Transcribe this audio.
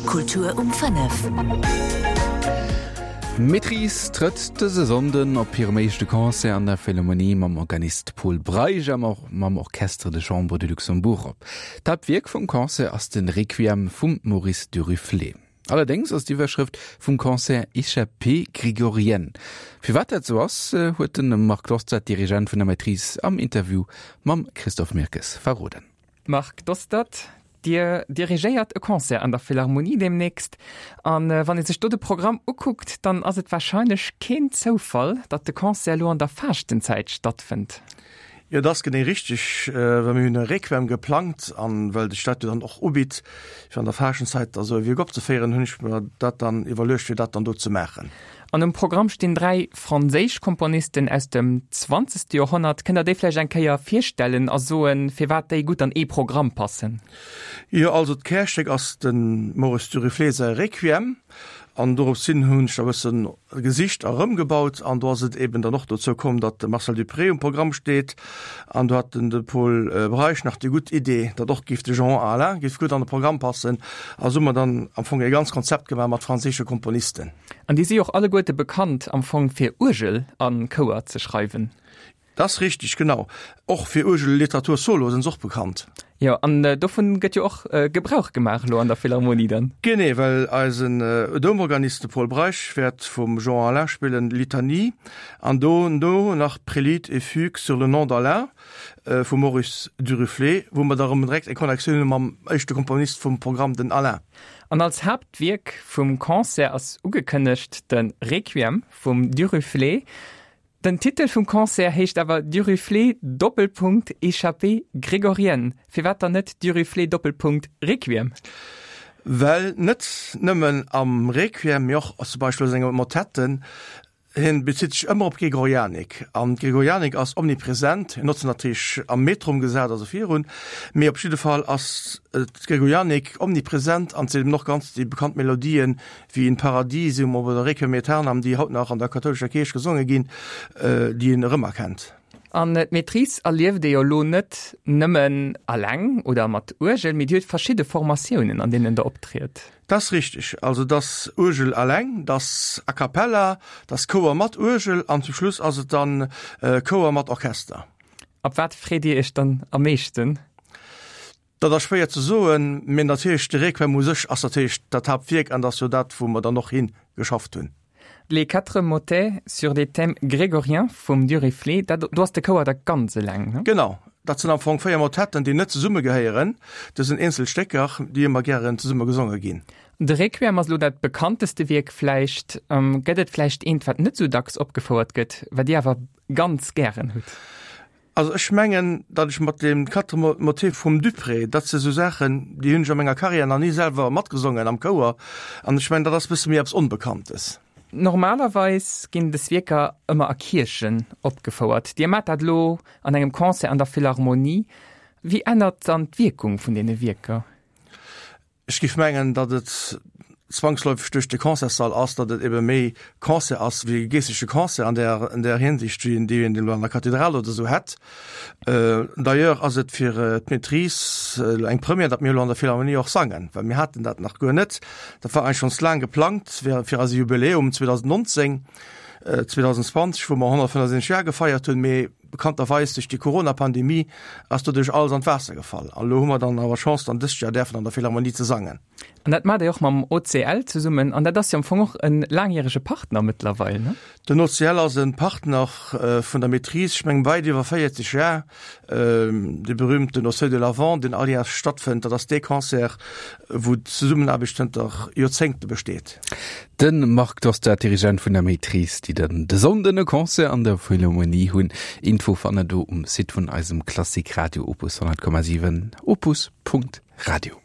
Kultur um 5. D'Maîtrise trëtt dëse Sonnden op hirem éischte Concert an der Philharmonie mam Organist Pol Breisch a mam Orchestre de Chambre de Luxembourg op. D'Haaptwierk vum Concert ass de Requiem vum Maurice Duruflé. Allerdéngs ass d'Iwwerschrëft vum Concert Échappée grégorienne. Firwat dat sou ass, huet de Marc Dostert, Dirigent vun der Maîtrise, am Interview mam Christophe Mirkes verroden. Marc Dostert, Dir dirigéiert e Concert an der Philharmonie deemnächst. An wann ee sech do de Programm ukuckt, dann ass et warscheinlech keen Zoufall, datt de Concert elo an der Faaschtenzäit stattfënnt. Jo, dat ass genee richteg, well mir hunn e Requiem geplangt an well sech dat jo dann och ubitt, fir an der Faaschtenzäit da sou e Wierk opzeféieren, hunn ech mer dat dann iwwerluecht, fir dat dann do ze maachen. An um Programm stinn 3 franséisch Komponisten aus dem zwanzegste Joerhonnert. Kënnt der déi vläicht eng Kéier virstellen a soen, firwat déi gutt an ee Programm passen? Jo, also d'Kärstéck ass dem Maurice Duruflé säi Requiem an dorops hin hunn ech da e bësse gesicht a rëmgebaut an do ass et eben dann och dozou komm, datt de Marcel Dupré um Programm steet an do hat den de Pol Breisch nach déi gutt Idee, datt och géif de Jean Alain géif gutt an de Programm passen a sou hu mer dann am Fong e ganz Konzept gemaach mat franséische Komponisten. An déi si och alleguerte bekannt am Fong fir Uergel a Chouer ze schreiwen. Dat ass richteg, genau. Och fir Uergelliteratur solo sinn se och bekannt. Jo, an dovun gëtt jo och Gebrauch gemaach elo an der Philharmonie dann. Genee, well eisen Doumorganist, de Pol Breisch, wäert vum Jean Alain spillen Litanie an dono nach Prélude et Fugue sur le nom d'Alain vum Maurice Duruflé, wou mer da rëm direkt eng Connectioun hu mam éischte Komponist vum Programm, den Alain. An als Haaptwierk vum Concert ass ugekënnegt de Requiem vum Duruflé. Den Titel vum Concert heescht awer Duruflé Doppelpunkt Échappée grégorienne. Firwat dann net Duruflé Doppelpunkt Requiem? Well net nëmmen am Requiem, mee och zum Beispill a senge Motetten Hien bezitt sech ëmmer op d'Gregorianik, an d'Gregorianik ass omnipresent. Hien huet se natierlech am Metrum gesat, also virun, mee op jidde Fall ass d'Gregorianik omnipresent an et sinn eben och ganz déi bekannt Melodien wéi In Paradisum oder Requiem aeternam, déi haut nach an der kathoulescher Kierch gesonge ginn, déi een erëmerkennt. An d'Maîtrise erlieft ee jo elo net nëmmen alleng oder mat Uergel, mee Dir hutt verschidde Formatiounen, an deenen Der optriet. Dat ass richteg. Also et ass Uergel alleng, et ass a cappella, et ass Chouer mat Uergel an zum Schluss ass et dann Chouer mat Orchester. Op wat freet Dir Iech dann am meeschten? Dat ass schwéier ze soen, mee natierlech de Requiem u sech ass natierlech dat Haaptwierk an dat ass jo dat, wou mer dann och hi geschafft hunn. Les quatre motets sur des thèmes grégoriens vum Duruflé, dat do ass de Chouer da ganz eleng, ne? Genau, dat sinn am Fong 4 Motetten, déi net zesumme gehéieren. Dat sinn eenzel Stécker, déi ëmmer gären zesumme gesonge ginn. De Requiem ass elo dat bekannteste Wierk vläicht. Gëtt et vläicht eent, wat net esou dacks opgefouert gëtt, wat Dir awer ganz gären hutt? Also ech mengen, datt ech mat deem Quatre Motets vum Dupré, dat si sou Saachen, déi hunn ech a menger Karriär nach ni selwer matgesongen am Chouer, an ech mengen, dat ass e bësse méi eppes Onbekanntes. Normalerweis ginn des Wierker ëmmer a Kierchen opgefouert. Dir maacht dat elo an engem Concert an der Philharmonie. Wéi ännert dann d'Wierkung vun deene Wierker? Ech géif mengen, datt et zwangsläufeg duerch de Concertssall ass, datt et ebe méi Concert ass wéi e geeschtleche Concert an där, an där Hinsicht, wéi een dee een elo an der Kathedral oder esou hätt. D'ailleurs ass et fir d'Maîtrise elo eng Première, datt mir elo an der Philharmonie och sangen, well mir haten dat nach guer net. Dat war eigentlech schonns laang geplangt fir, fir eise Jubiläum 2019, 2020, wou mer 175 Jar gefeiert hunn, mee Bekannterweis duerch déi Corona-Pandemie ass doduerch alles an d'Waasser gefall. An elo hu mer dann awer Chance, dann dëst Joer däerfen an der Philharmonie ze sangen. An dat maacht Dir och mam OCL zesummen. An dat ass jo am Fong och e laangjärege Partner mëttlerweil, ne? Den OCL ass e Partner vun der Maîtrise, ech mengen weit iwwer 40 Jar. Dee berühmten Au seuil de l'avant, deen all Jar stattfënnt, dat ass dee Concert, wou d'Zesummenaarbecht zënter Joerzéngte besteet. De Marc Dostert, Dirigent vun der Maîtrise, déi dann de Sonnden e Concert an der Philharmonie hunn. Info fannt der do um Site vun eisem Klassik Radio Opus 100,7 opus.radio.